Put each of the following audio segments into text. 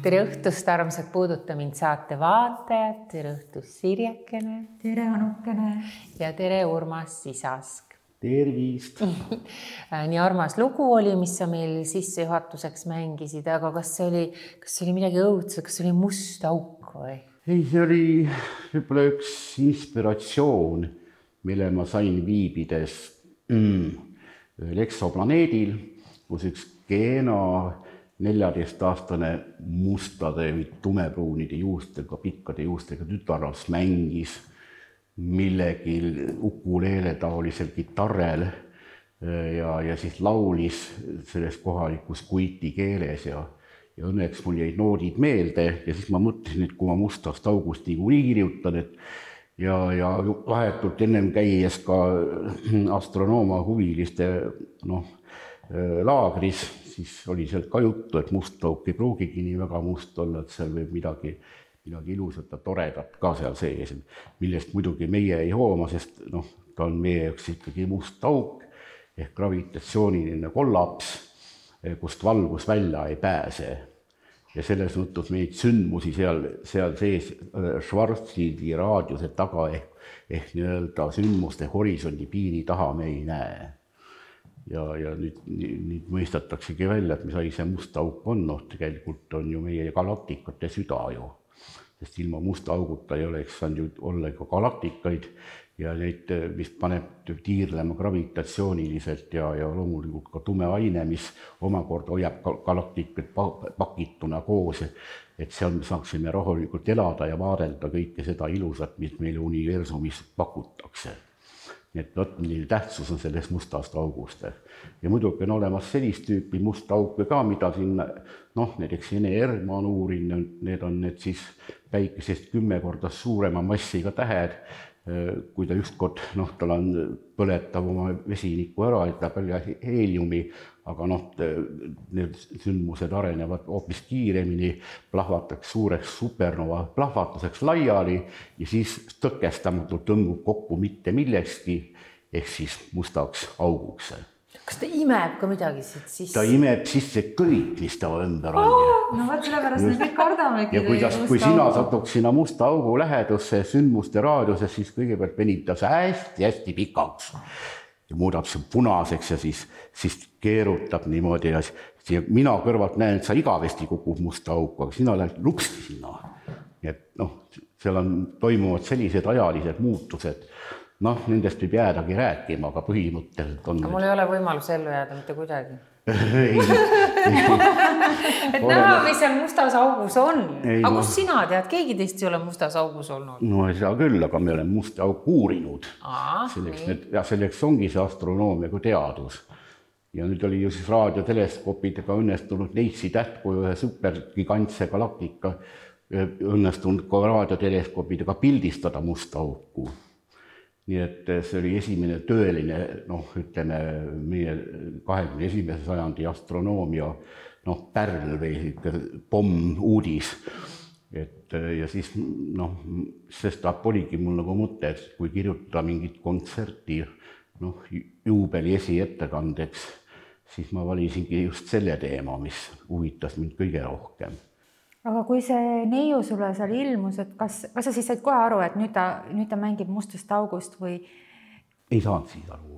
Tere õhtust, armsad Puuduta mind saate vaatajad. Tere õhtust, Sirjekene. Tere, Anukene. Ja tere, Urmas Sisask. Tervist. Nii armas lugu oli, mis sa meil sissejuhatuseks mängisid, aga kas see oli midagi õudset, kas see oli must auk või? Ei, see oli võib-olla üks inspiratsioon, mille ma sain viibides ühel eksoplaneedil, kus üks Keena 14-aastane mustade või tumepruunide juustega, pikkade juustega tütarlaps mängis millegi ukuleele taolisel kitarrel ja siis laulis selles kohalikus kuiti keeles ja õnneks mul jäid noodid meelde ja siis ma mõtlesin, et kui ma Mustast august niikuinii kirjutan, ja vahetult ennem käies ka astronooma huviliste laagris, siis oli seal ka juttu, et must auk ei pruugigi nii väga must olla, et seal võib midagi ilusat ja toredat ka seal sees, millest muidugi meie ei hooma, sest ta on meie jaoks ikkagi must auk ehk gravitatsiooniline kollaps, kust valgus välja ei pääse. Ja selles mõttes neid sündmusi seal sees Schwarzschildi raadiuse taga ehk nii-öelda sündmuste horisondi piiri taha me ei näe. Ja nüüd mõistataksegi välja, et mis asi see must auk on, tegelikult on ju meie galaktikate süda ju, sest ilma musta auguta ei oleks saanud ju olla ka galaktikaid ja neid, mis paneb tiirlema gravitatsiooniliselt ja loomulikult ka tume aine, mis omakorda hoiab galaktikud pakituna koos, et seal me saaksime rahulikult elada ja vaadelda kõike seda ilusat, mis meile universumis pakutakse. Nii et milline tähtsus on selles mustast august. Ja muidugi on olemas sellist tüüpi musta auke ka, mida siin, näiteks NER ma on uurinud, need on need siis päikesest 10 korda suurema massiga tähed, kui ta ükskord, tal on põletav oma vesiniku ära, et ta palju heeliumi, aga need sündmused arenevad hoopis kiiremini, plahvataks suureks supernova plahvatuseks laiali ja siis tõkestamatult tõmbub kokku mitte millekski, ehk siis mustaks auguks. Kas ta imeb ka midagi siit sisse? Ta imeb sisse kõik, mis ta ümber on. No võt sellepärast me kõik kardamegi. Ja kui sina satuks sinna musta augu lähedusse sündmuste raadiuses, siis kõigepealt venib ta hästi pikaks ja muudab see punaseks ja siis keerutab niimoodi ja mina kõrvalt näen, et sa igavesti kukub musta auku, aga sina lähed luksti sinna. Et seal toimuvad sellised ajalised muutused. Nendest võib jäädagi rääkima, aga põhimõtteliselt on... Mul ei ole võimalus ellu jääda mitte kuidagi. Ei. Et näha, mis seal mustas augus on. Aga kus sina tead? Keegi teist ei ole mustas augus olnud? No ei saa küll, aga me oleme musta auku uurinud. Selleks ongi see astronoomia kui teadus. Ja nüüd oli ju siis raadioteleskoopidega õnnestunud Neitsi tähtkuju ühe supergigantse galaktika õnnestunud ka raadioteleskoopidega pildistada musta auku. Nii et see oli esimene tõeline, ütleme, meie 21. sajandi astronoomia pärl või pomm uudis. Ja siis, sest oligi mul nagu mõte, et kui kirjutada mingit kontserti juubeli esiettekandeks, siis ma valisingi just selle teema, mis huvitas mind kõige rohkem. Aga kui see neiu sulle seal ilmus, et kas sa siis said kohe aru, et nüüd ta mängib mustast august või? Ei saanud siis aru,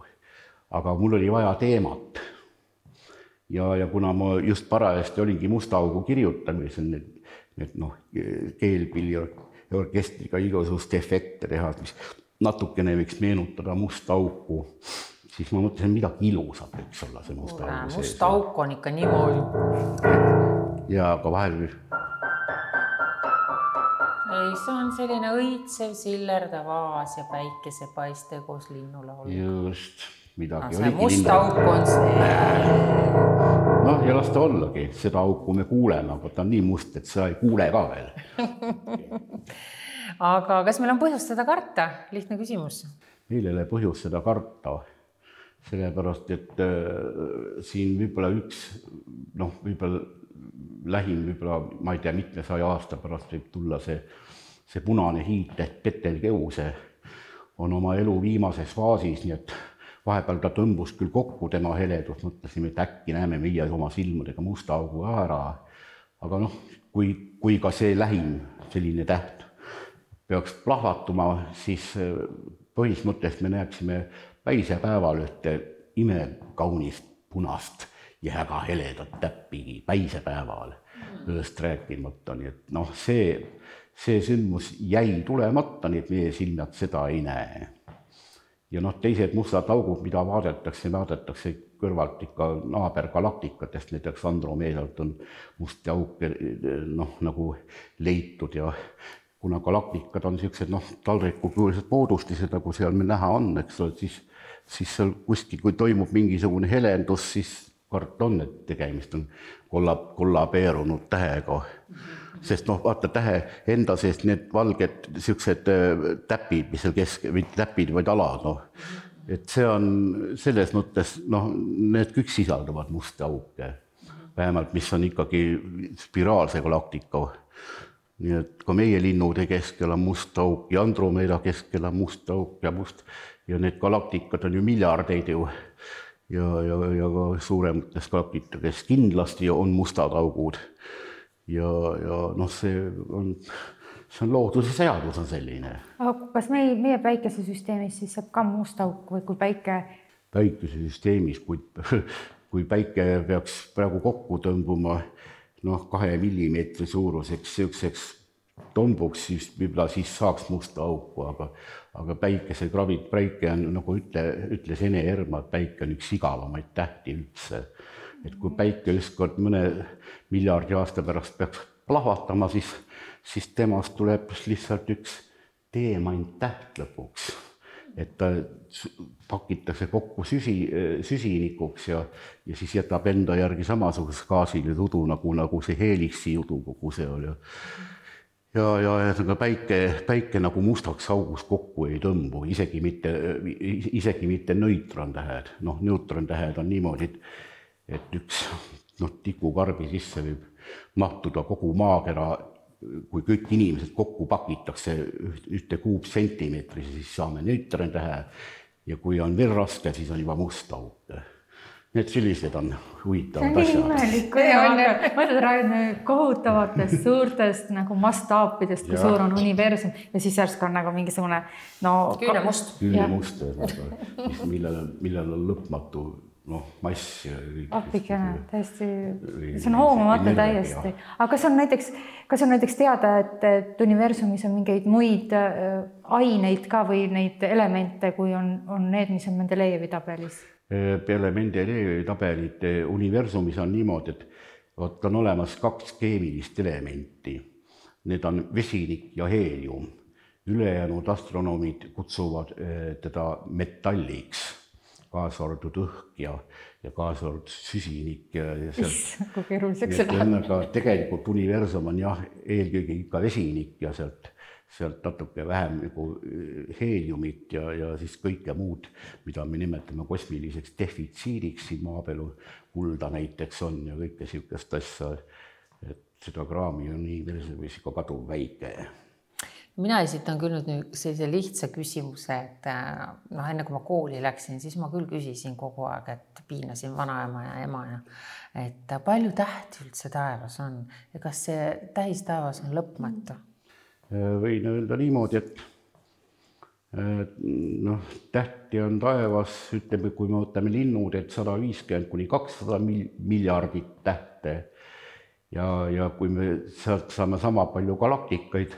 aga mul oli vaja teemat. Ja kuna ma just parajasti olingi musta augu kirjutamisel, keelpilli orkestriga igasugust efekte teha, mis natukene võiks meenutada musta auku, siis ma mõtlesin, midagi ilusat võiks olla see musta augu sees. Musta auk on ikka niimoodi. Ja aga vahel... Ei, see on selline õitsev, sillerdav vaas ja päikese paiste koos linnulaulu. Just, midagi oligi linnulaulu. Musta auk on see. Ja las ta ollagi, seda auku me kuuleme, aga ta on nii must, et sa ei kuule ka veel. Aga kas meil on põhjust seda karta? Lihtne küsimus. Meil ei ole põhjust seda karta, sellepärast, et siin võib-olla võib-olla lähim, ma ei tea, mitme 100 aasta pärast võib tulla see punane hiit ehk Betelgeuse on oma elu viimases faasis, nii et vahepeal ta tõmbus küll kokku tema heledus, mõtlesime, et äkki näeme meie oma silmadega musta augu ära, aga noh, kui ka see lähim selline täht peaks plahvatuma, siis põhimõtteliselt me näeksime päisepäeval ühte imekaunist punast ja väga heledat täppi päisepäeval, ööst rääkimata, nii et noh, see sündmus jäi tulemata, nii et meie silmad seda ei näe. Ja noh, teised mustad augud, mida vaadatakse kõrvalt ikka naabergalaktikatest, näiteks Andromeedalt on musti auke nagu leitud ja kuna galaktikad on niisugused taldrikukujulised moodustised, nagu seal meil näha on, eks ole, siis seal kuskil, kui toimub mingisugune helendus, siis kart on, et tegemist on kollabeerunud tähega. Sest vaata tähe enda seest need valged niisugused täpid, mis seal mitte täpid, vaid alad, et see on selles mõttes, need kõik sisaldavad musta auke, vähemalt mis on ikkagi spiraalse galaktika. Nii et ka meie linnude keskel on must auk ja Andromeeda keskel on must auk ja need galaktikad on ju miljardeid ju ja ka suuremates galaktikades kindlasti on mustad augud. Ja see on looduse seadus on selline. Aga kas meie päikesesüsteemis siis saab ka must auk või kui Päikesesüsteemis, kui päike peaks praegu kokku tõmbuma 2 millimeetri suuruseks siukseks tombuks, siis võib-olla siis saaks musta auku, aga päike on, nagu ütles Ene Erma, et päike on üks igavamaid tähti üldse. Et kui päike ükskord mõne miljardi aasta pärast peaks plahvatama, siis temast tuleb lihtsalt üks teemant täht lõpuks. Et ta pakitakse kokku süsinikuks ja siis jätab enda järgi samasuguse gaasile tudu, nagu see heliksi judu kogu see oli. Ja päike nagu mustaks augus kokku ei tõmbu, isegi mitte neutrontähed. Neutrontähed on niimoodi, et üks tikukarbi sisse võib mahtuda kogu maakera, kui kõik inimesed kokku pakitakse ühte kuupsentimeetri, siis saame neutrontähe ja kui on veel raske, siis on juba must auk. Need sellised on huvitavad asjad. See on nii imelik, mõtled räägime kohutavatest suurtest nagu mastaapidest, kui suur on universum ja siis järsk on nagu mingisugune küünemust, millel on lõpmatu mass. Appikene, täiesti, see on hoomamata täiesti. Aga kas on näiteks teada, et universumis on mingeid muid aineid ka või neid elemente, kui on need, mis on Mendelejevi tabelis? Peale Mendelejevi tabelid universumis on niimoodi, et on olemas 2 keemilist elementi. Need on vesinik ja heelium. Ülejäänud astronoomid kutsuvad teda metalliks. Kaasa arvatud õhk ja kaasa arvatud süsinik. Kui keeruliseks see läheb. Tegelikult universum on eelkõige ikka vesinik ja sealt natuke vähem nagu heeliumit ja siis kõike muud, mida me nimetame kosmiliseks defitsiidiks, siin maapeal kulda näiteks on ja kõike siukest asja, et seda kraami on universumis ikka kaduv väike. Mina esitan küll nüüd sellise lihtsa küsimuse, et enne kui ma kooli läksin, siis ma küll küsisin kogu aeg, et piinasin vanaema ja ema et palju tähti üldse taevas on ja kas see tähistaevas on lõpmatu? Võin öelda niimoodi, et tähti on taevas, ütleme, kui me võtame linnud, et 150–200 miljardit tähte ja kui me sealt saame sama palju galaktikaid,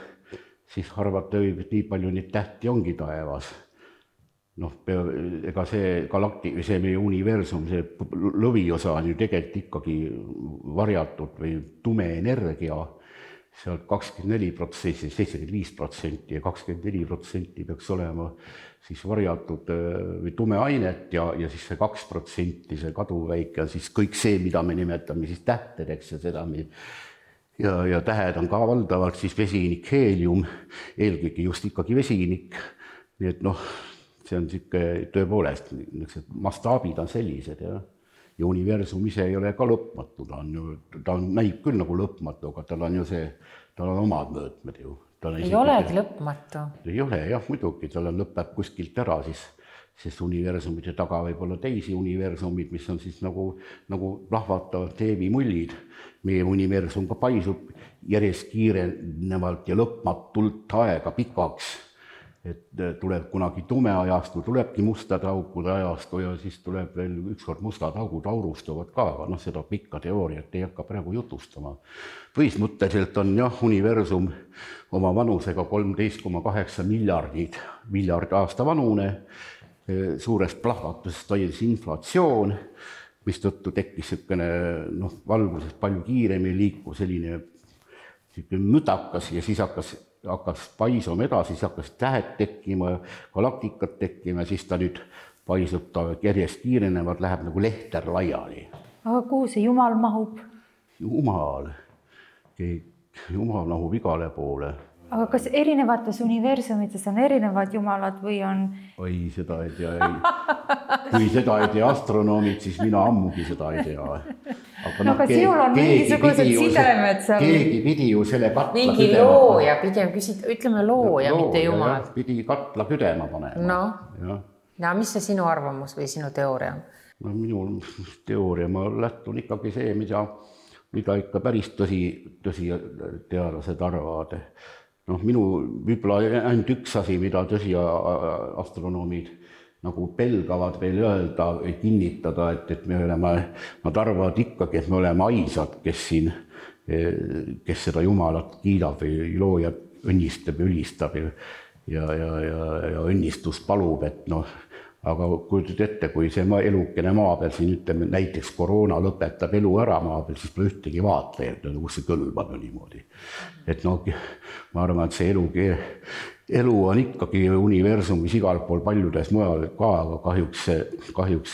siis arvata võib, et nii palju neid tähti ongi taevas. Ega see meie universum, see lõviosa on ju tegelikult ikkagi varjatud või tume energia, sealt 24%, 75% ja 24% peaks olema siis varjatud või tume ainet ja siis see 2%, see kaduväike on siis kõik see, mida me nimetame siis tähtedeks ja seda ja tähed on ka valdavalt siis vesinik, heelium, eelkõige just ikkagi vesinik, nii et see on tõepoolest, mastaabid on sellised ja universum ise ei ole ka lõpmatu, ta näib küll nagu lõpmatu, aga tal on omad mõõtmed ju. Ei olegi lõpmatu. Ei ole jah, muidugi, tal lõpeb kuskilt ära, sest universumite taga võib olla teisi universumid, mis on siis nagu plahvatavad teevimullid. Meie universum ka paisub järjest kiirenevalt ja lõpmatult aega pikaks, et tuleb kunagi tume ajastu, tulebki mustade aukude ajastu ja siis tuleb veel ükskord mustad augud aurustuvad ka, aga seda pikka teooriat ei hakka praegu jutustama. Põhismõtteliselt on universum oma vanusega 13,8 miljard aasta vanune, suurest plahvatusest toimus inflatsioon, mis tõttu tekkis valgusest palju kiiremini liikuv selline müdakas ja siis hakkas paisuma edasi, siis hakkas tähed tekkima, galaktikad tekkima ja siis ta nüüd paisub, ta järjest kiirenevad, läheb nagu lehter laiali. Aga kuhu see Jumal mahub? Jumal mahub igale poole. Aga kas erinevates universumites on erinevad jumalad või on? Oi, seda ei tea. Kui seda ei tea astronoomid, siis mina ammugi seda ei tea. Aga sinul on mingisugused sidemed seal. Keegi pidi ju selle katla mingi looja, pigem ütleme looja, mitte jumal. Pidi katla küdema panema. No, mis see sinu arvamus või sinu teooria on? No minu teooria, ma lähtun ikkagi see, mida ikka päris tõsi teadlased arvavad. Minu võib-olla ainult üks asi, mida tõsi astronoomid nagu pelgavad veel öelda või kinnitada, et nad arvavad ikkagi, et me oleme aisad, kes seda Jumalat kiidab või loojat õnnistab ja ülistab ja õnnistust palub, et aga kujutad ette, kui see elukene maa peal siin ütleme, näiteks koroona lõpetab elu ära maa peal, siis pole ühtegi vaatlejad, kus see kõlbab niimoodi. Et ma arvan, et see elu on ikkagi universumis igal pool paljudes mujal ka, aga kahjuks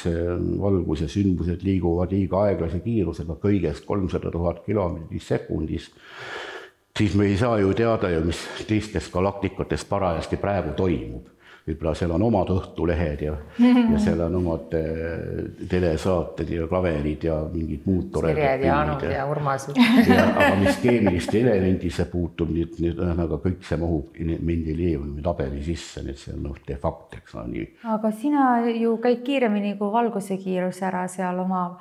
valguse sündmused liiguvad liiga aeglase kiirusega kõigest 300 000 kilomeetrit sekundis. Siis me ei saa ju teada, mis teistes galaktikates parajasti praegu toimub. Võib-olla seal on omad õhtulehed ja seal on omad telesaated ja klaverid ja mingid muud toredad. Sirjed ja Anud ja Urmasid. Aga mis keemiliste elemendisse puutub, aga kõik see mahub Mendelejevi tabeli sisse, nii et see on de facto, eks nii. Aga sina ju käid kiiremini kui valguse kiirus ära seal oma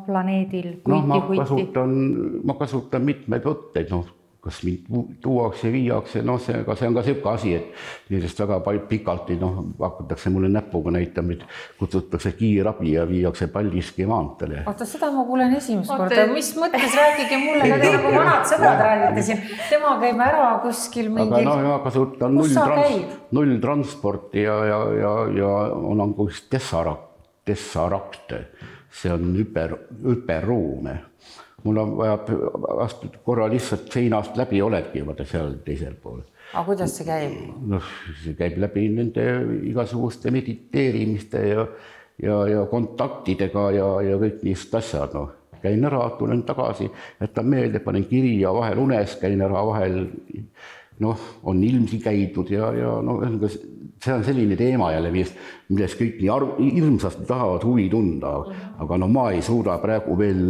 planeedil. Ma kasutan mitmeid võtteid, kas mind tuuakse ja viiakse, see on ka selline asi, et nendest väga pikalt hakatakse mulle näpuga näitama, et kutsutakse kiirabi ja viiakse Paldiski maantele. Oota, seda ma kuulen esimest korda. Mis mõttes rääkige mulle, nagu vanad sõbrad räägite siin. Tema käib ära kuskil mingil... Aga ma kasutan nulltransporti ja on kus Tessarakt. See on hüperruume. Mul on vaja korra lihtsalt seinast läbi oledki seal teisel pool. Aga kuidas see käib? See käib läbi nende igasuguste mediteerimiste ja kontaktidega ja kõik niisugused asjad. Käin ära, tulen tagasi, jätan meelde, panen kiri ja vahel unes, käin ära vahel, on ilmsi käidud ja see on selline teema jälle, millest kõik nii hirmsasti tahavad huvi tunda, aga ma ei suuda praegu veel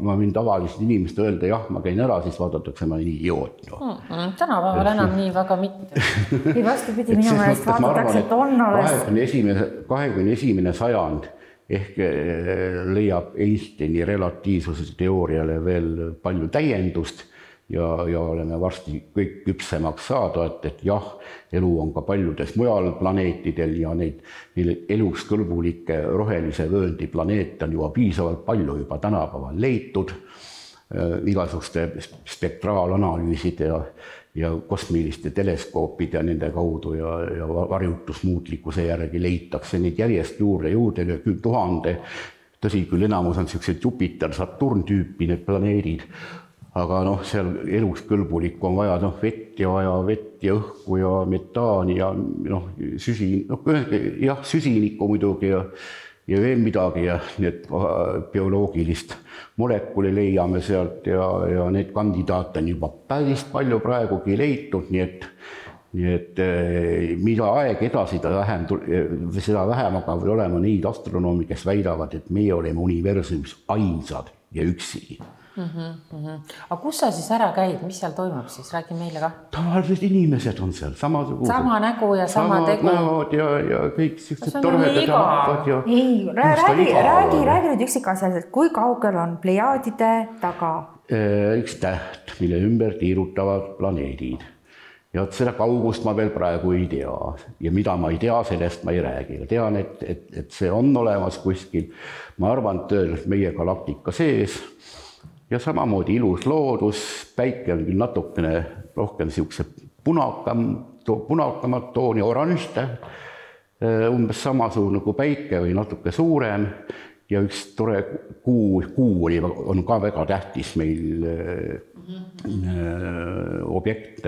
ma võin tavalist inimest öelda, jah, ma käin ära, siis vaadatakse ma nii idioot. Tänapäeval enam nii väga mitte. Ei vastupidi, minu meelest vaadatakse, et on alles. 21. sajand ehk leiab Einsteini relatiivsuse teooriale veel palju täiendust ja oleme varsti kõik küpsemaks saada, et jah, elu on ka paljudes mujal planeetidel ja neid eluks kõlbulikke rohelise vööndi planeete on juba piisavalt palju juba tänapäeval leitud, igasuguste spektraalanalüüside ja kosmiliste teleskoopide ja nende kaudu ja varjutusmuutlikkuse järgi leitakse neid järjest juurde 10 000. Tõsi küll, enamus on sellised Jupiter, Saturn tüüpi need planeedid, aga seal eluks kõlbulik on vaja vett ja õhku ja metaani ja süsinikku muidugi ja veel midagi ja need bioloogilist molekuli leiame sealt ja need kandidaate on juba päris palju praegugi leitud, nii et mida aeg edasi, seda vähem aga olema neid astronoomi, kes väidavad, et meie oleme universumis ainsad ja üksi. Aga kus sa siis ära käid, mis seal toimub siis, räägi meile ka. Tavalised inimesed on seal, samasugused. Sama nägu ja sama tegu. Näod ja kõik sellised toredad rahvad. Ei, räägi nüüd üksikasjaliselt, kui kaugel on Plejaadide taga? Üks täht, mille ümber tiirutavad planeedid. Ja seda kaugust ma veel praegu ei tea. Ja mida ma ei tea, sellest ma ei räägi. Tean, et see on olemas kuskil. Ma arvan, et meie galaktika sees. Ja samamoodi ilus loodus, päike on küll natukene rohkem siukse punakamat tooni, oranž täht, umbes samasugune kui päike või natuke suurem ja üks tore kuu on ka väga tähtis meil objekt,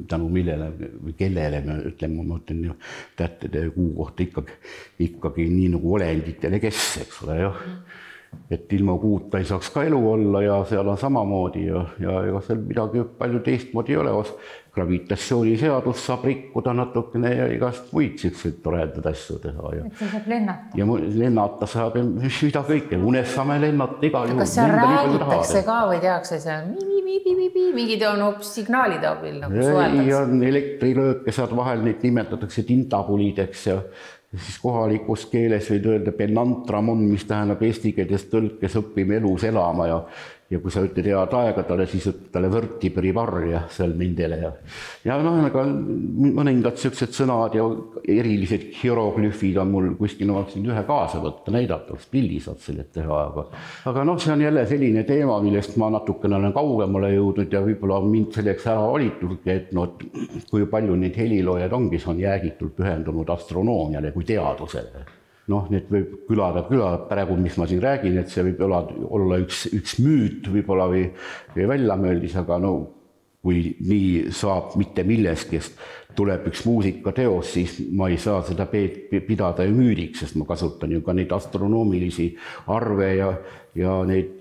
tänu millele või kellele me ütleme, ma ütlen tähtede kuu kohta ikkagi nii nagu olenditele kes, eks ole, jah. Et ilma kuuta ei saaks ka elu olla ja seal on samamoodi ja ega seal midagi palju teistmoodi ei ole. Gravitatsiooniseadus saab rikkuda natukene ja igast muid selliseid toredad asju teha. Et see saab lennata. Ja lennata saab ja mida kõike. Unes saame lennata igal juhul. Kas seal räägitakse ka või tehakse seal mingid on hoopis signaalide abil nagu suheldaks? Ja elektrilööke saad vahel, neid nimetatakse tintabulideks ja siis kohalikus keeles võid öelda penantramon, mis tähendab eesti keeles tõlkes õppime elus elama ja kui sa ütled head aega talle, siis ütled talle vörtiperivarja seal nendele ja aga mõningad sellised sõnad ja erilised hieroglüfid on mul kuskil, ma võiksin ühe kaasa võtta, näidata, pildi saad selle teha, aga see on jälle selline teema, millest ma natukene olen kaugemale jõudnud ja võib-olla mind selleks ära valitudki, et kui palju neid heliloojad ongi, see on jäägitult pühendunud astronoomiale kui teadusele. Need võib külada praegu, mis ma siin räägin, et see võib olla üks müüt võib-olla või väljamööldis, aga kui nii saab mitte milleski, tuleb üks muusikateos, siis ma ei saa seda pidada ju müüdiks, sest ma kasutan ju ka neid astronoomilisi arve ja neid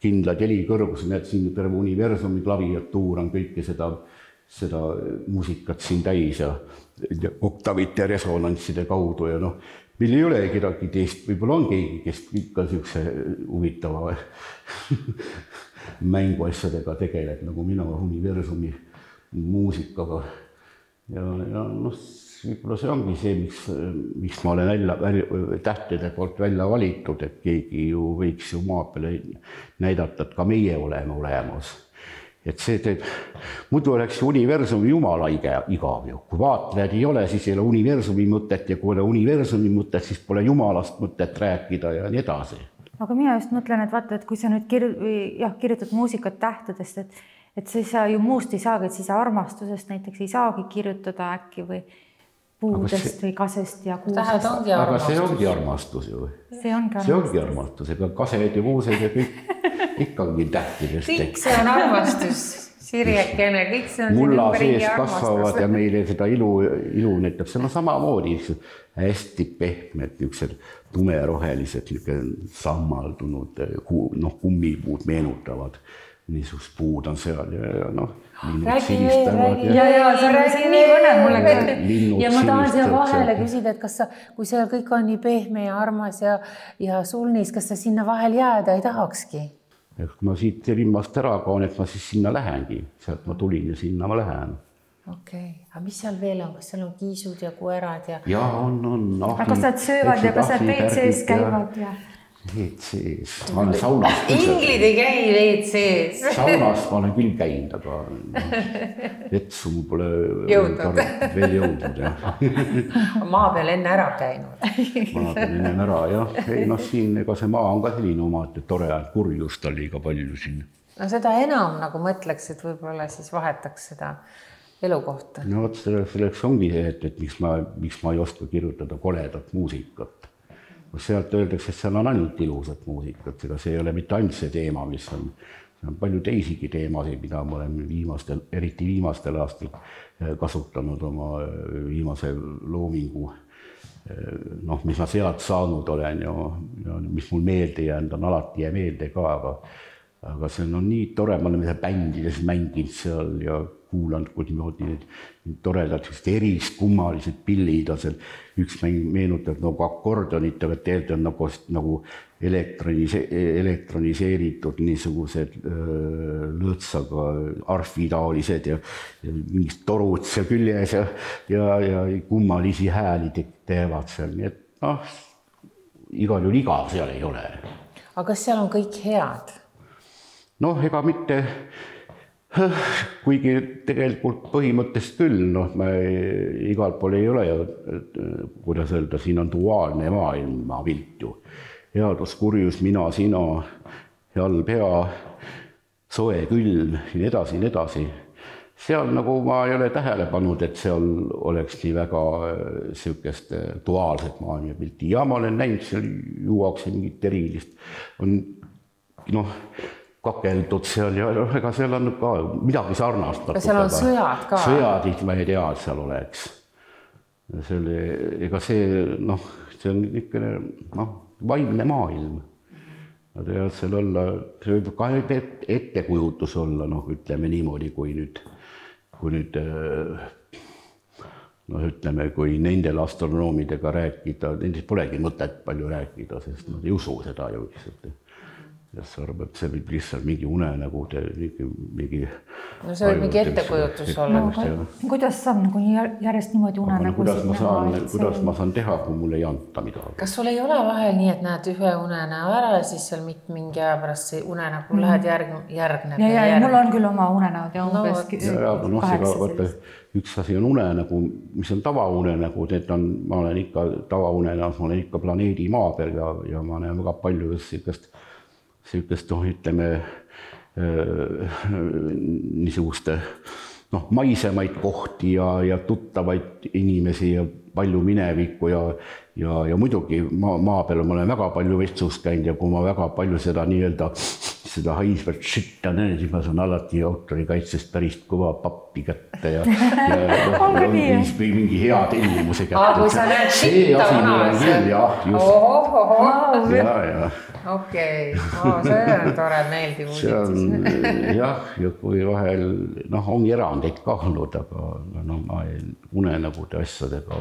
kindlad helikõrgus, need siin terve universumi klaviatuur on kõike seda muusikat siin täis ja oktavite resonantside kaudu ja meil ei ole kedagi teist, võib-olla on keegi, kes ikka niisuguse huvitava mänguasjadega tegeleb, nagu mina universumi muusikaga. Ja võib-olla see ongi see, miks ma olen tähtede poolt välja valitud, et keegi ju võiks ju maa peale näidata, et ka meie oleme olemas. Et see teeb, muidu oleks universumi jumala igav ju. Kui vaatlejad ei ole, siis ei ole universumi mõtet ja kui ei ole universumi mõtet, siis pole jumalast mõtet rääkida ja nii edasi. Aga mina just mõtlen, et vaata, et kui sa nüüd kirjutad muusikat tähtedest, et siis sa ju muust ei saagi, et siis armastusest näiteks ei saagi kirjutada äkki või puudest või kasest ja kuusest. Aga see ongi armastus ju. See ongi armastus, ega kased ja kuused ja kõik ikkagi tähtidest. Kõik see on armastus, Sirjekene, kõik see on mulla sees kasvavad ja meile seda ilu näitab. See on samamoodi hästi pehmed, niisugused tumerohelised, sammaldunud kummipuud meenutavad. Niisugust puud on seal ja räägi, see on nii põnev mulle ka. Ja ma tahan seal vahele küsida, et kas sa, kui seal kõik on nii pehme ja armas ja sulnis, kas sa sinna vahel jääda ei tahakski? Kui ma siit limmast ära kaon, et ma siis sinna lähengi. Sealt ma tulin ja sinna ma lähen. Okei, aga mis seal veel on? Kas seal on kiisud ja koerad? Ja on. Aga kas nad söövad ja kas nad WC-s käivad? WC-s. Ma olen saunas. Inglid ei käi WC-s. Saunas ma olen küll käinud, aga vetsu mul pole veel jõudnud. Maa peal enne ära käinud. Maa peal enne ära, jah. Siin ega see maa on ka selline oma, et tore kurjust oli ka palju siin. Seda enam nagu mõtleks, et võib-olla siis vahetaks seda elukohta. Selleks ongi see, et miks ma ei oska kirjutada koledat muusikat. Sealt öeldakse, et seal on ainult ilusat muusikat, ega see ei ole mitte ainult see teema, mis on palju teisigi teemasid, mida ma olen eriti viimastel aastal kasutanud oma viimase loomingu, mis ma sealt saanud olen ja mis mul meelde jäänud on, alati jää meelde ka, aga see on nii tore, ma olen bändides mänginud seal ja kuulanud, kui niimoodi need toredad eriskummalised pillid on seal. Üks meenutab nagu akordionit, aga tegelikult on nagu elektroniseeritud niisugused lõõtsaga arfitaolised ja mingid torud seal küljes ja kummalisi hääli teevad seal. Nii et igal juhul igav seal ei ole. Aga kas seal on kõik head? Ega mitte, kuigi tegelikult põhimõttest küll, ma igal pool ei ole ja kuidas öelda, siin on duaalne maailmapilt ju. Headus, kurjus, mina, sina, halb, hea, soe, külm, nii edasi. Seal nagu ma ei ole tähele pannud, et seal oleks nii väga sihukest duaalset maailmapilti. Ja ma olen näinud, seal juuakse mingit erilist. On kakeldud seal ja ega seal on ka midagi sarnast. Ja seal on sõjad ka. Sõjadid ma ei tea, et seal oleks. Ega see on niisugune vaimne maailm. Seal olla, see võib ka ettekujutus olla, ütleme niimoodi, kui nendel astronoomidega rääkida, nendest polegi mõtet palju rääkida, sest nad ei usu seda ju lihtsalt. Ja see arvab, et see võib lihtsalt mingi unenägu, mingi... No see võib mingi ettekujutus olla. Kuidas saab järjest niimoodi unenägu? Kuidas ma saan teha, kui mul ei anta midagi? Kas sul ei ole vahel nii, et näed ühe unenäo ära ja siis seal mingi aja pärast see unenägu lähed järgneb? Ja mul on küll oma unenäod ja umbes 8. Üks asi on unenägu, mis on tavaunenägu, ma olen ikka tavaunenäos, ma olen ikka planeedi maa peal ja ma näen väga palju sihukest, ütleme, niisuguste maisemaid kohti ja tuttavaid inimesi ja palju minevikku ja muidugi maa peal ma olen väga palju vetsus käinud ja kui ma väga palju seda nii-öelda seda haisvat šitta näen, siis ma saan alati autorikaitsest päris kõva pappi kätte ja mingi hea tellimuse kätte. Kui sa näed šitta vanas. Okei, see on tore, meeldiv uudis. Ja kui vahel, ongi erandeid ka olnud, aga ma unenägude asjadega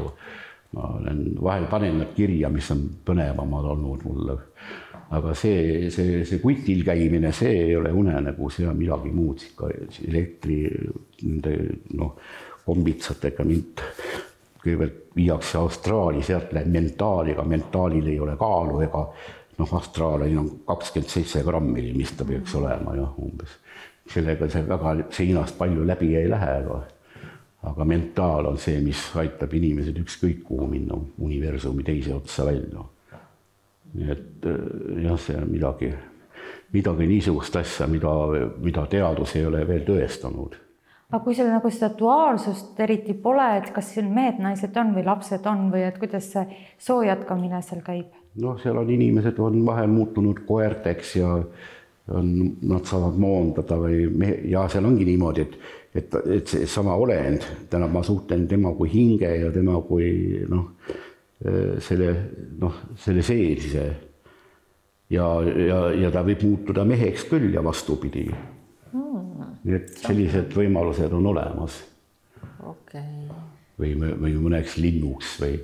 ma olen vahel panen nad kirja, mis on põnevamad olnud mulle. Aga see kutil käimine, see ei ole unenägu, see on midagi muud, elektri, kombitsatega mind kõigepealt viiakse Austraali, sealt läheb mentaaliga, mentaalil ei ole kaalu ega Austraalil on 27 grammil, mis ta peaks olema ja umbes. Sellega see väga seinast palju läbi ei lähe, aga mentaal on see, mis aitab inimesed ükskõik kuhu minna universumi teise otsa välja. Nii et jah, see on midagi niisugust asja, mida teadus ei ole veel tõestanud. Aga kui seal seda duaalsust eriti pole, et kas siin mehed, naised on või lapsed on või et kuidas see soo jätkamine seal käib? Seal on inimesed on vahel muutunud koerteks ja nad saavad moondada ja seal ongi niimoodi, et see sama olend, tähendab ma suhtlen tema kui hinge ja tema kui selle seelse ja ta võib muutuda meheks küll ja vastupidi. Nii et sellised võimalused on olemas. Või mõneks linnuks või...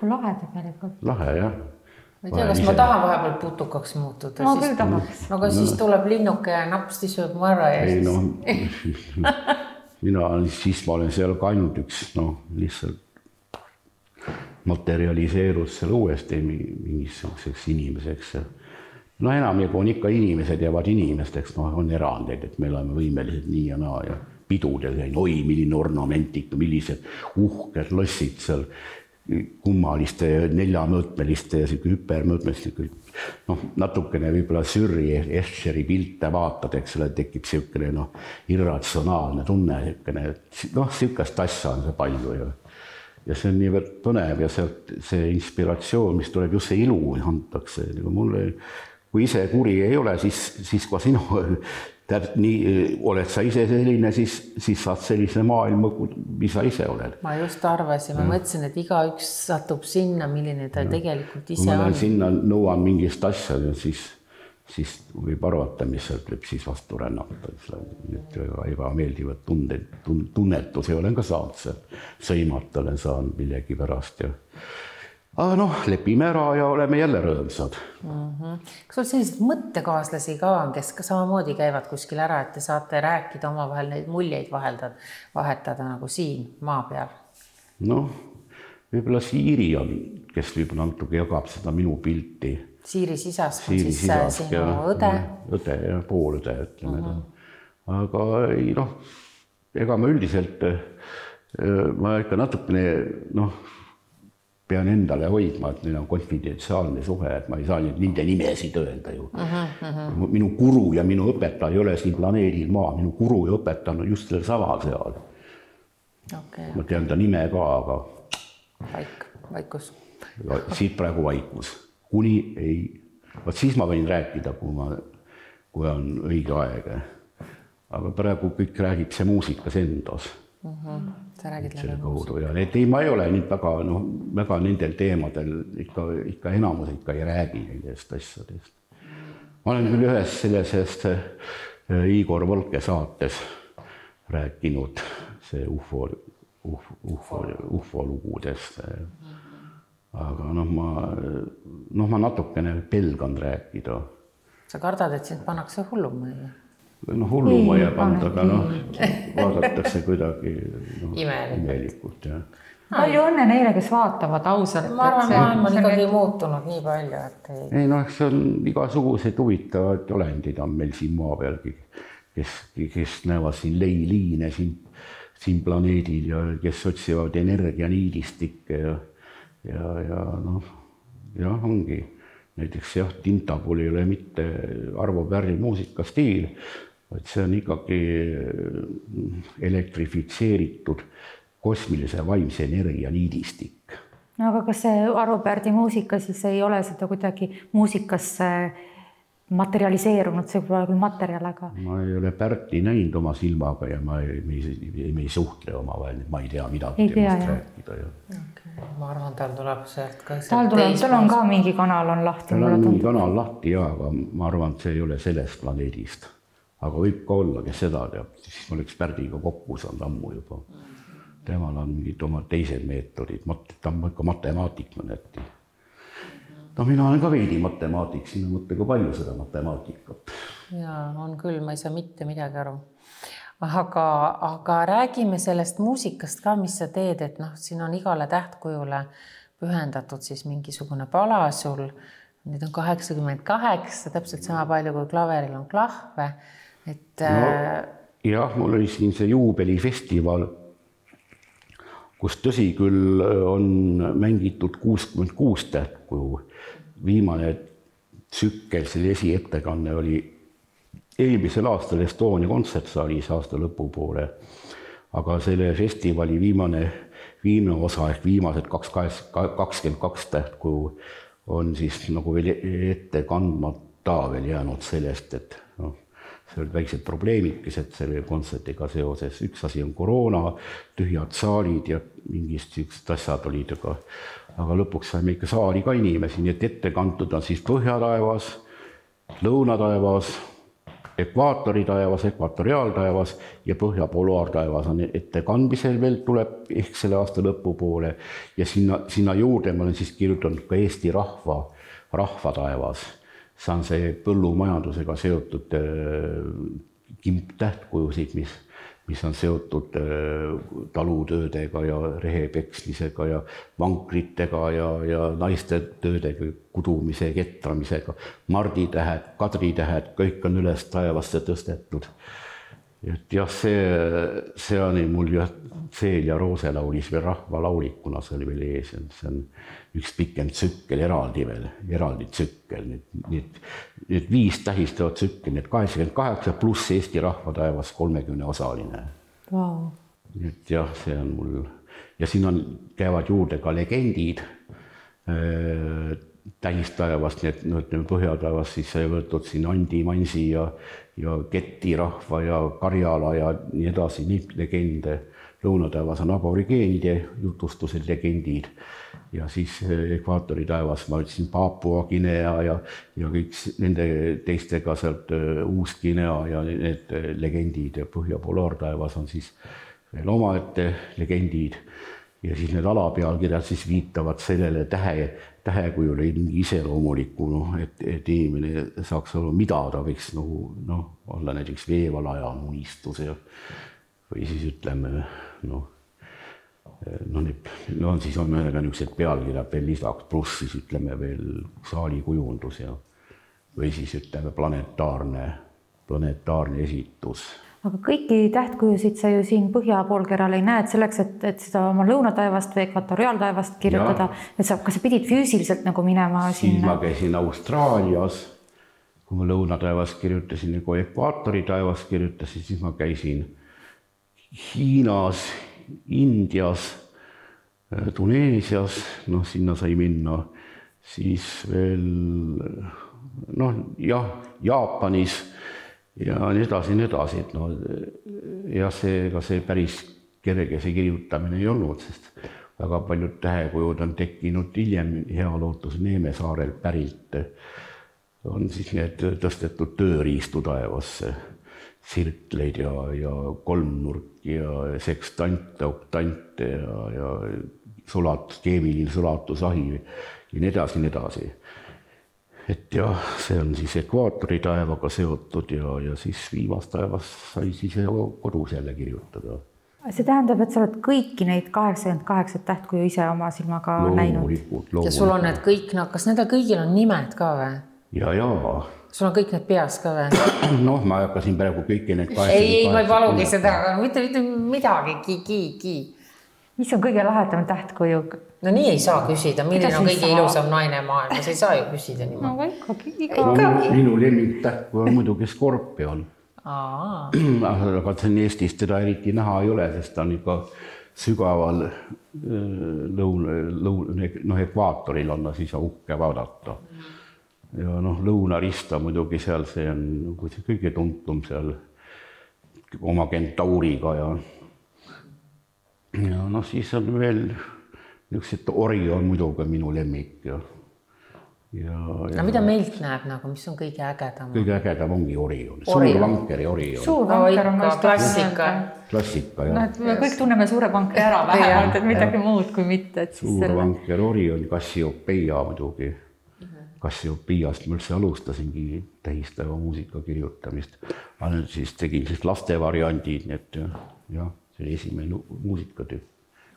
Lahe tegelikult. Lahe, jah. Ma ei tea, kas ma tahan vahepeal putukaks muutuda. Ma küll tahaks. Aga siis tuleb linnuke ja napsti sööb mu ära ja siis... ma olen seal ka ainult üks, lihtsalt materialiseerus seal uuesti mingisuguseks inimeseks. Enamjagu on ikka inimesed jäävad inimesteks, on erandeid, et me oleme võimelised nii ja naa ja pidudel käin, milline ornamentik, millised uhked lossid seal kummaliste ja neljamõõtmeliste ja hüpermõõtmeliste, natukene võib-olla Sürri Escheri pilte vaatad, eks ole, tekib siukene irratsionaalne tunne, siukest asja on see palju ja see on niivõrd põnev ja see inspiratsioon, mis tuleb just see ilu antakse, mulle kui ise kuri ei ole, siis kui sinu oled sa ise selline, siis saad sellise maailma, mis sa ise oled. Ma just arvasin, ma mõtlesin, et igaüks satub sinna, milline ta tegelikult ise on. Kui ma sinna nõuan mingist asja, siis siis võib arvata, mis sealt võib siis vastu rännata. Need ebameeldivad tunnetusi olen ka saanud seal, sõimata olen saanud millegi pärast. Aga noh, lepime ära ja oleme jälle rõõmsad. Kas sul selliseid mõttekaaslasi ka on, kes ka samamoodi käivad kuskil ära, et te saate rääkida omavahel neid muljeid vahetada nagu siin maa peal? Noh, võib-olla Siiri on, kes võib-olla natuke jagab seda minu pilti. Siiri Sisask on siis sinu õde? Õde ja poolõde, ütleme. Aga ei, noh, ega ma üldiselt, ma ikka natukene, pean endale hoidma, et neil on konfidentsiaalne suhe, et ma ei saa nende nimesid öelda ju. Minu guru ja minu õpetaja ei ole siin planeedil maa, minu guru ja õpetaja on just selle sama seal. Okay. Ma tean ta nime ka, aga... Vaikus. Siit praegu vaikus. Kuni ei... Vaat siis ma võin rääkida, kui on õige aeg. Aga praegu kõik räägib see muusikas endas. Sa räägid selle kaudu. Ja ma ei ole nüüd väga nendel teemadel ikka enamus ikka ei räägi nendest asjadest. Ma olen küll ühes sellisest Igor Volke saates rääkinud see UFO lugudest. Aga ma natukene pelgan rääkida. Sa kardad, et sind pannakse hullumajja? Hullumajja panda, aga vaadatakse kuidagi imelikult. Palju õnne neile, kes vaatavad ausalt. Ma arvan, maailm on ikkagi muutunud nii palju, et ei... See on igasugused huvitavad olendid on meil siin maa pealgi, kes näevad siin leiliine siin planeedil ja kes otsivad energianiidistikke ja ongi. Näiteks Tinta puhul ei ole mitte Arvo Pärri muusikastiil, vaid see on ikkagi elektrifitseeritud kosmilise vaimse energia niidistik. Aga kas see Arvo Pärdi muusika siis ei ole seda kuidagi muusikasse materialiseerunud, see pole küll materjal, aga... Ma ei ole Pärti näinud oma silmaga ja me ei suhtle omavahel, ma ei tea midagi temast rääkida. Ma arvan, tal tuleb sealt ka... Tal on ka mingi kanal on lahti. Tal on mingi kanal lahti, aga ma arvan, et see ei ole sellest planeedist. Aga võib ka olla, kes seda teab, siis ma oleks Pärdiga kokku saanud ammu juba. Temal on mingid oma teised meetodid, ta on ikka matemaatik mõneti. Mina olen ka veidi matemaatik, siin on mõtte ka palju seda matemaatikat. Jaa, on küll, ma ei saa mitte midagi aru. Aga räägime sellest muusikast ka, mis sa teed, et siin on igale tähtkujule pühendatud siis mingisugune pala sul. Nüüd on 88, täpselt sama palju kui klaveril on klahve. Jah, mul oli siin see juubelifestival, kus tõsi küll on mängitud 66 tähtkuju. Viimane tsükkel, selle esiettekanne oli eelmisel aastal Estonia kontsertsaalis aasta lõpupoole, aga selle festivali viimane osa ehk viimased 22 tähtkuju on siis nagu veel ette kandmata veel jäänud sellest, et see olid väiksed probleemikesed selle kontsertiga seoses. Üks asi on koroona, tühjad saalid ja mingist süüksed asjad olid, aga lõpuks saime ikka saali ka inimesi, nii et ette kantud on siis põhjataevas, lõunataevas, ekvaatoritaevas, ekvatoriaaltaevas ja põhjapolaartaevas on ette kandmisel veel tuleb ehk selle aasta lõpupoole ja sinna juurde ma olen siis kirjutanud ka Eesti rahvataevas. See on see põllumajandusega seotud tähtkujusid, mis on seotud talutöödega ja rehepeksmisega ja vankritega ja naiste töödega, kudumise, ketramisega. Marditähed, kadritähed, kõik on üles taevasse tõstetud. Et jah, see on mul Seel ja Roose laulis veel rahvalaulikuna, see oli veel ees. See on üks pikem tsükkel, eraldi tsükkel. Need 5 tähistavad tsükkel, need 88 pluss Eesti rahvataevas 30-osaline. Wow. Et jah, see on mul. Ja siin käivad juurde ka legendid tähistaevast, need põhjataevast siis sai võetud siin Andi Mansi ja Keti rahva ja Karjala ja nii edasi, neid legende lõunataevas on aborigeenide jutustused, legendid ja siis ekvaatori taevas ma ütlesin Papua Guinea ja kõik nende teistega sealt Uus-Guinea ja need legendid ja Põhja-Polaartaevas on siis veel omaette legendid ja siis need alapealkirjad siis viitavad sellele tähekujule mingi iseloomuliku, et inimene saaks aru, mida ta võiks olla näiteks veevalaja unistus või siis ütleme, siis on mõnega niisugused pealkirjad veel lisaks, pluss siis ütleme veel saalikujundus või siis ütleme planetaarne esitus. Aga kõiki tähtkujusid sa ju siin põhjapoolkeral ei näe, et selleks, et seda oma lõunataevast või ekvatoriaaltaevast kirjutada, et kas sa pidid füüsiliselt nagu minema sinna? Siis ma käisin Austraalias, kui ma lõunataevast kirjutasin ja kui ekvaatori taevast kirjutasin, siis ma käisin Hiinas, Indias, Tuneesias, sinna sai minna, siis veel, Jaapanis ja nii edasi, ja see päris kerge see kirjutamine ei olnud, sest väga paljud tähekujud on tekkinud hiljem Healootuse Neemesaarel pärilt, on siis need tõstetud tööriistu taevasse, sirkleid ja kolmnurki ja sekstante, oktante ja keemiline sulatusahi ja nii edasi. Et ja see on siis ekvaatori taevaga seotud ja siis viimast taevas sai siis kodus jälle kirjutada. See tähendab, et sa oled kõiki neid 88 tähtkuju ise oma silmaga näinud? Ja sul on need kõik, kas nendel kõigil on nimed ka või? Ja. Sul on kõik need peas ka või? Ma hakkasin praegu kõiki need 88. Ei, ma ei palugi seda, aga mitte midagi. Mis on kõige lahedam tähtkuju? No nii ei saa küsida, milline on kõige ilusam naine maailmas, ei saa ju küsida niimoodi. Ikkagi. Minu lemmiktähtkuju on muidugi skorpion. Aga Eestis teda eriti näha ei ole, sest ta on ikka sügaval ekvaatoril on siis uhke vaadata. Ja lõunarista muidugi seal, see on kõige tuntum seal oma Kentauriga ja siis on veel niisugused Orion muidugi minu lemmik ja mida meilt näeb, mis on kõige ägedam? Kõige ägedam ongi Orion, suurvankeri Orion. Suurvanker on klassika, jah. Me kõik tunneme suure vankri ära vähemalt, et midagi muud kui mitte. Suurvanker Orion, Cassiopeia muidugi. Cassiopeiast ma üldse alustasingi tähistava muusika kirjutamist. Ma nüüd siis tegin laste variandid, et jah, see oli esimene muusikatüüp,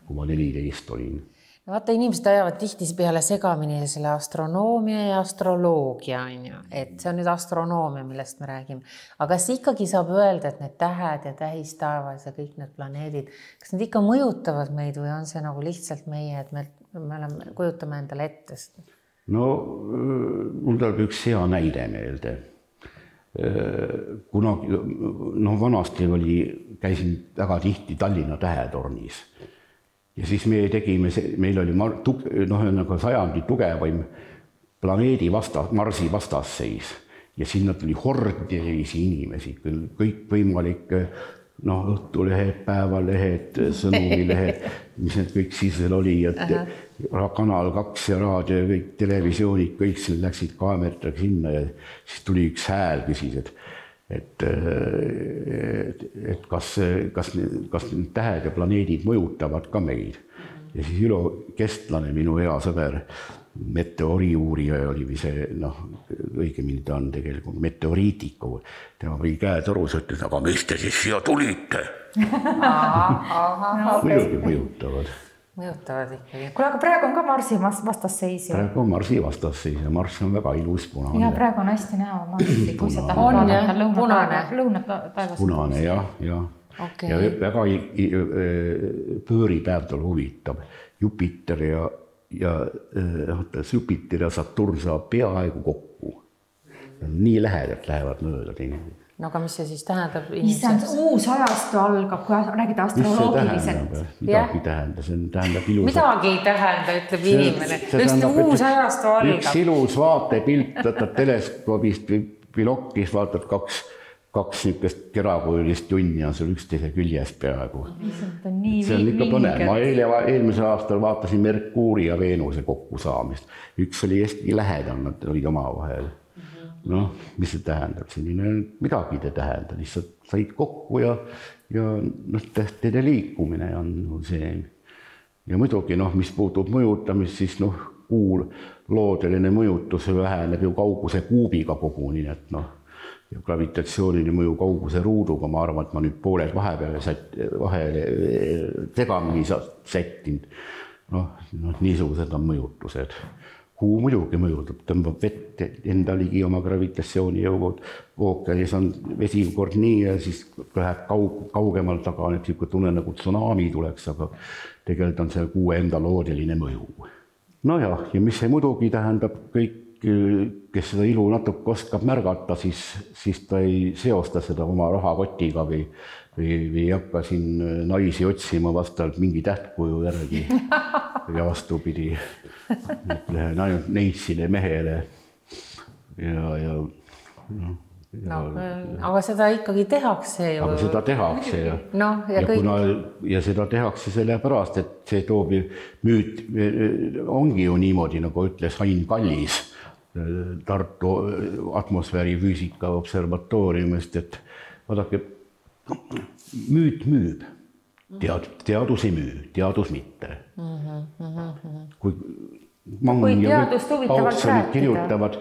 kui ma 14 olin. Vaata, inimesed ajavad tihti peale segamini selle astronoomia ja astroloogia, et see on nüüd astronoomia, millest me räägime. Aga kas ikkagi saab öelda, et need tähed ja tähistaevas ja kõik need planeedid, kas need ikka mõjutavad meid või on see nagu lihtsalt meie, et me kujutame endale ette? Mul tuleb üks hea näide meelde. Kunagi, vanasti käisin väga tihti Tallinna Tähetornis. Ja siis meil oli sajandi tugevaim planeedi Marsi vastasseis ja sinna tuli hordelisi inimesi, kõik võimalik õhtulehed, päevalehed, sõnumilehed, mis need kõik siis veel oli, et Kanal 2 ja raadio ja kõik televisioonid, kõik läksid kaameratega sinna ja siis tuli üks hääl, küsis, et kas need tähed ja planeedid mõjutavad ka meid. Ja siis Ülo Kestlane, minu hea sõber, meteoriuurija oli see, õigemini ta on tegelikult meteoriitiku. Tema või käetorus ütles, aga mis te siis siia tulite? Muidugi mõjutavad. Mõjutavad ikkagi. Kuule, aga praegu on ka Marsi vastasseis. Praegu on Marsi vastasseis ja Mars on väga ilus punane. Ja praegu on hästi näha Marsi, kui sa tahad vaadata lõunataevast. Punane, jah. Okay. Ja väga pööripäev tal huvitab. Jupiter ja Saturn saab peaaegu kokku. Nii lähedalt lähevad mööda teineteist. Aga mis see siis tähendab? Uus ajastu algab, kui räägida astroloogiliselt. Midagi tähendab, see tähendab ilus. Midagi ei tähenda, ütleb inimene. Uus ajastu algab. Üks ilus vaatepilt, võtad teleskoobist või pilokis, vaatad 2 niisugust kerakujulist junni on seal üksteise küljes peaaegu. See on ikka põnev. Ma eelmisel aastal vaatasin Merkuuri ja Veenuse kokkusaamist. Üks oli hästi lähedal, nad olid omavahel. Noh, mis see tähendab? Selline midagi te tähendab. Lihtsalt said kokku ja teede liikumine on see. Ja muidugi, mis puutub mõjutamist, siis kuul loodeline mõjutus väheneb ju kauguse kuubiga koguni, et ja gravitatsiooniline mõju kauguse ruuduga, ma arvan, et ma nüüd pooled vahele segamini sättinud. Niisugused on mõjutused. Kuu muidugi mõjutab, tõmbab vett enda ligi oma gravitatsioonijõugud. Ookeanis on vesi kord nii ja siis läheb kaugemal taga, et tunne nagu tsunami tuleks, aga tegelikult on see kuu enda loodeline mõju. Ja mis see muidugi tähendab kõik, kes seda ilu natuke oskab märgata, siis ta ei seosta seda oma rahakotiga või ei hakka siin naisi otsima vastavalt mingi tähtkuju järgi ja vastupidi. Lähen ainult neitsile mehele aga seda ikkagi tehakse ju. Aga seda tehakse ja seda tehakse sellepärast, et see toob müüt, ongi ju niimoodi, nagu ütles Ain Kallis Tartu atmosfäärifüüsika observatooriumist, et vaadake, müüt müüb, teadus ei müü, teadus mitte. Kui Mang ja Paulsonid kirjutavad,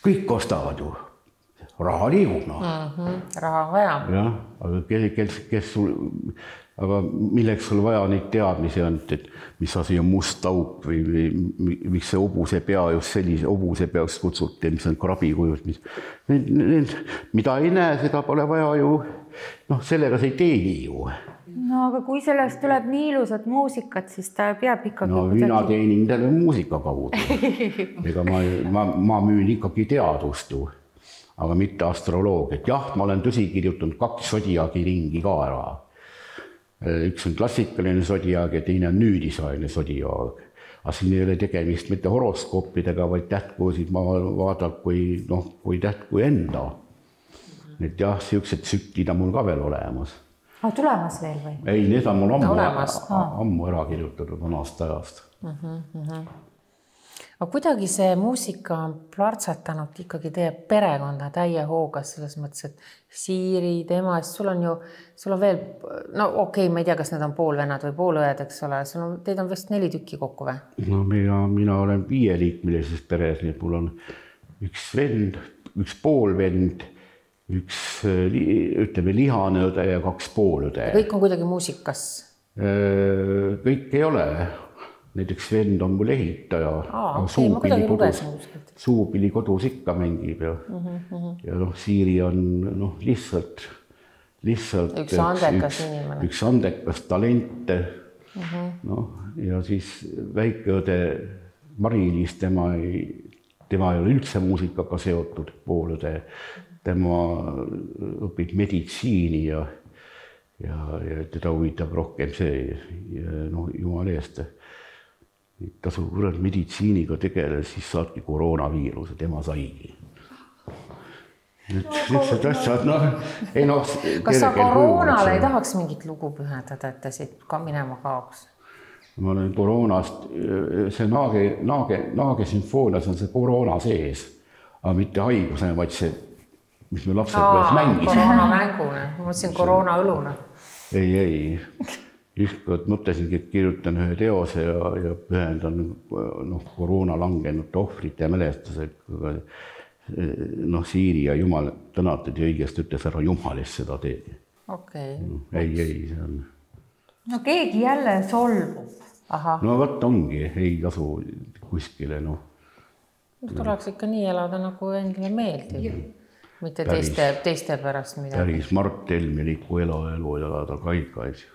kõik ostavad ju, raha liigub. Raha on vaja. Aga milleks sul vaja neid teadmisi on, et mis asi on must auk või miks see hobuse pea just sellise hobuse peaks kutsuti, mis on krabikujud, mida ei näe, seda pole vaja ju, sellega see ei teeni ju. Aga kui sellest tuleb nii ilusat muusikat, siis ta peab ikkagi... Mina teenin tänu muusika kaudu. Ega ma müün ikkagi teadust ju, aga mitte astroloogiat. Jah, ma olen tõsi kirjutanud 2 sodiaagi ringi ka ära. Üks on klassikaline sodiaag ja teine on nüüdisaegne sodiaag. Aga siin ei ole tegemist mitte horoskoopidega, vaid tähtkuusid ma vaatan kui tähtkuju enda. Et jah, sellised tsüklid on mul ka veel olemas. Tulemas veel või? Ei, need on mul ammu ära kirjutatud vanast ajast. Aga kuidagi see muusika on plartsatanud ikkagi teie perekonda täie hoogas selles mõttes, et Siiri, tema, sul on veel, ma ei tea, kas need on poolvennad või poolõed, eks ole, teid on vist 4 tükki kokku või? Mina olen 5-liikmelises peres, nii et mul on üks vend, üks poolvend, üks, ütleme, lihane õde ja 2 poolõde. Kõik on kuidagi muusikas? Kõik ei ole. Näiteks vend on mul ehitaja. Suupili kodus ikka mängib ja Siiri on lihtsalt üks andekas inimene. Üks andekas talente. Ja siis väikeõde Mari-Liis, tema ei ole üldse muusikaga seotud poolõde. Tema õpib meditsiini ja teda huvitab rohkem see, jumal eest. Ta sul meditsiiniga tegeles, siis saadki koroonaviiruse, tema saigi. Niisugused asjad, Kas sa koroonale ei tahaks mingit lugu pühendada, et ta siit ka minema kaoks? Ma olen koroonast, see Naage sümfoonias on see koroona sees, aga mitte haigusena, vaid see, mis me lapsed peas mängisime. Koroona mänguna, ma mõtlesin koroona õluna. Ei. Ükskord mõtlesingi, et kirjutan ühe teose ja pühendan koroona langenud ohvrite mälestusega. Siiri ja Jumal tänatud ja õigest ütles ära Jumalist seda teed. Okei. Ei, see on... keegi jälle solvub. Võt ongi, ei tasu kuskile. Tuleks ikka nii elada, nagu endale meeldib. Mitte teiste pärast midagi. Päris Mart Helmeliku elu elada kaikaid.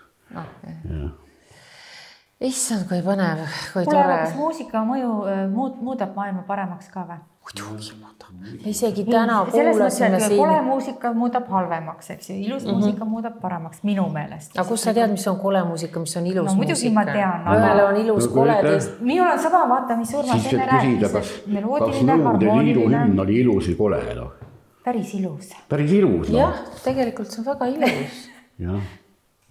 Issand, kui põnev, kui tore. Tore. Kas muusika mõju muudab maailma paremaks ka või? Muidugi muudab. Isegi täna kuulasime siin. Kole muusika muudab halvemaks, eks ju. Ilus muusika muudab paremaks minu meelest. Aga kus sa tead, mis on kole muusika, mis on ilus muusika? Muidugi ma tean. Ühele on ilus kole teist. Minul on sama vaata, mis Urmas enne rääkis. Kas Nõukogude Liidu hümn oli ilus või kole? päris ilus. Päris ilus. Jah, tegelikult see on väga ilus. Jah.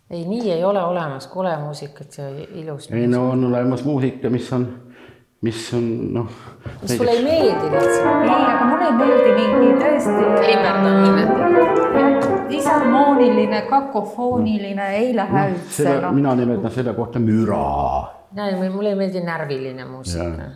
Ei, nii ei ole olemas kole muusikat ja ilus. Ei, no on olemas muusika, mis on mis sulle ei meeldi lihtsalt? Ei, aga mulle ei meeldi mingi tõesti limberdamine. Disharmooniline, kakofooniline, ei lähe üldse. Mina nimetan selle kohta müra. Mulle ei meeldi närviline muusika.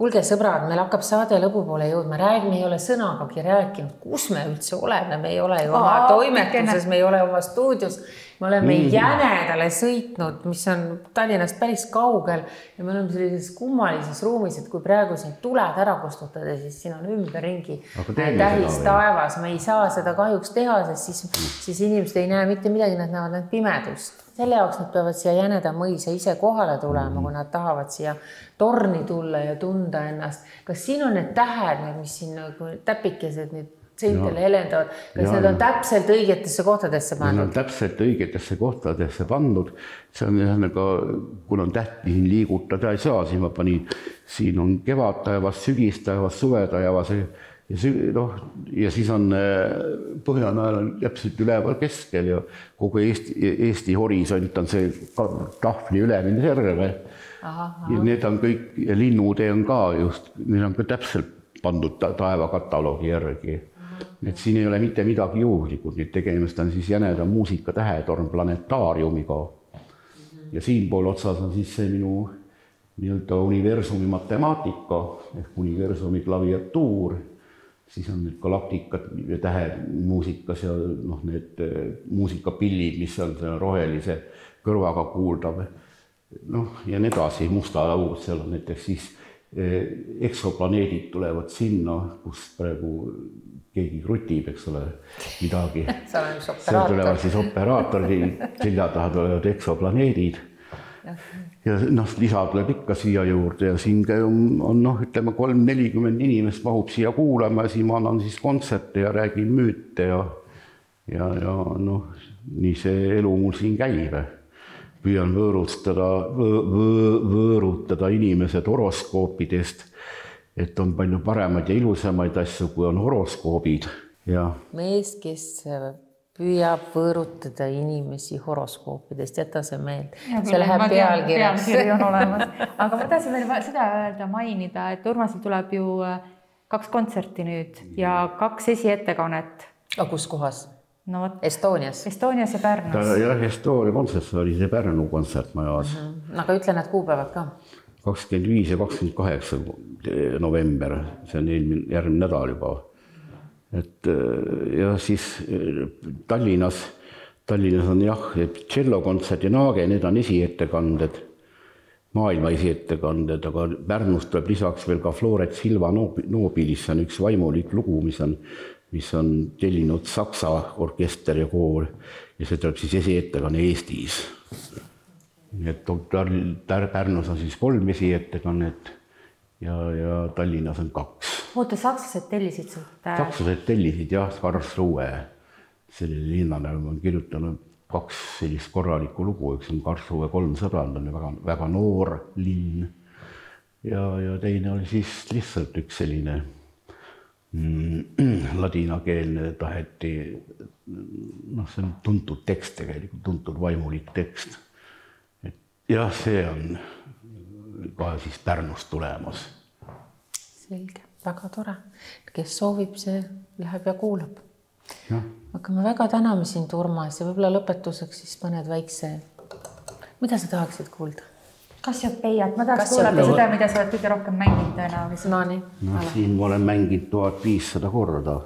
Kuulge sõbrad, meil hakkab saade lõpu poole jõudma. Räägime, ei ole sõnagagi rääkinud. Kus me üldse oleme? Me ei ole ju oma toimetuses, me ei ole oma stuudios. Me oleme Jänedale sõitnud, mis on Tallinnast päris kaugel. Ja me oleme sellises kummalises ruumis, et kui praegu siin tuled ära kustutada, siis siin on ümberringi tähis taevas. Me ei saa seda kahjuks teha, sest siis inimesed ei näe mitte midagi, nad näevad need pimedust. Selle jaoks nad peavad siia Jäneda mõisa ise kohale tulema, kui nad tahavad siia torni tulla ja tunda ennast. Kas siin on need tähed, mis siin täpikesed nüüd seintele helendavad? Kas need on täpselt õigetesse kohtadesse pandud? Need on täpselt õigetesse kohtadesse pandud. See on nagu, kun on tähti siin liigutada ei saa, siis ma panin, siin on kevadtaevas, sügistaevas, suvetaevas ja siis on Põhjanajal on täpselt üleval keskel ja kogu Eesti horisont on see tahvli ülemine serve. Ja need on kõik, ja linnutee on ka just, need on ka täpselt pandud taevakataloogi järgi. Et siin ei ole mitte midagi juhlikud, nüüd tegemist on siis Jäneda muusikatähetorn planetaariumiga. Ja siinpool otsas on siis see minu universumi matemaatika ehk universumi klaviatuur. Siis on need galaktikad ja tähed muusikas ja need muusikapillid, mis on rohelise kõrvaga kuuldav. Ja need edasi, musta laud, seal on näiteks siis eksoplaneedid tulevad sinna, kus praegu keegi krutib, eks ole, midagi. Seal tulevad siis operaatori, selja taha tulevad eksoplaneedid. Ja lisa tuleb ikka siia juurde ja siin on ütleme 3-40 inimest mahub siia kuulama ja siin ma annan siis kontserte ja räägin müüte ja nii see elu mul siin käib. Püüan võõrutada inimesed horoskoopidest, et on palju paremaid ja ilusamaid asju, kui on horoskoobid. Mees, kes püüab võõrutada inimesi horoskoopidest, jäta see meeld. See läheb pealkirjaks. Pealkiri on olemas. Aga ma tahtsin veel seda öelda, mainida, et Urmasil tuleb ju 2 kontserti nüüd ja 2 esiettekannet. Aga kus kohas? Estonias? Estonias ja Pärnus. Jah, Estonia kontsert oli see Pärnu kontsert majas. Aga ütle need kuupäevad ka. 25 ja 28 november, see on järgmine nädal juba. Ja siis Tallinnas on tšellokontsert ja Naage, need on esiettekanded, maailma esiettekanded, aga Pärnust tuleb lisaks veel ka Floret Silva Nobilis, see on üks vaimulik lugu, mis on tellinud Saksa orkester ja koor ja see tuleb siis esiettekanne Eestis. Pärnus on siis 3 esiettekannet ja Tallinnas on 2. Oota, sakslased tellisid sult? Sakslased tellisid, jah, Karlsruhe. Sellele linnale on kirjutanud 2 sellist korralikku lugu, üks on Karlsruhe 3 sõbrand, on väga noor linn. Ja teine oli siis lihtsalt üks selline ladinakeelne taheti, see on tuntud tekst tegelikult, tuntud vaimulik tekst. Jah, see on ka siis Pärnust tulemas. Selge. Väga tore. Kes soovib, see läheb ja kuulab. Aga me väga täname sind, Urmas, ja võib-olla lõpetuseks siis mõned väikse. Mida sa tahaksid kuulda? Kassiopeiat. Ma tahaks kuulata seda, mida sa oled kõige rohkem mänginud tõenäoliselt. Nii. Siin ma olen mänginud 1500 korda.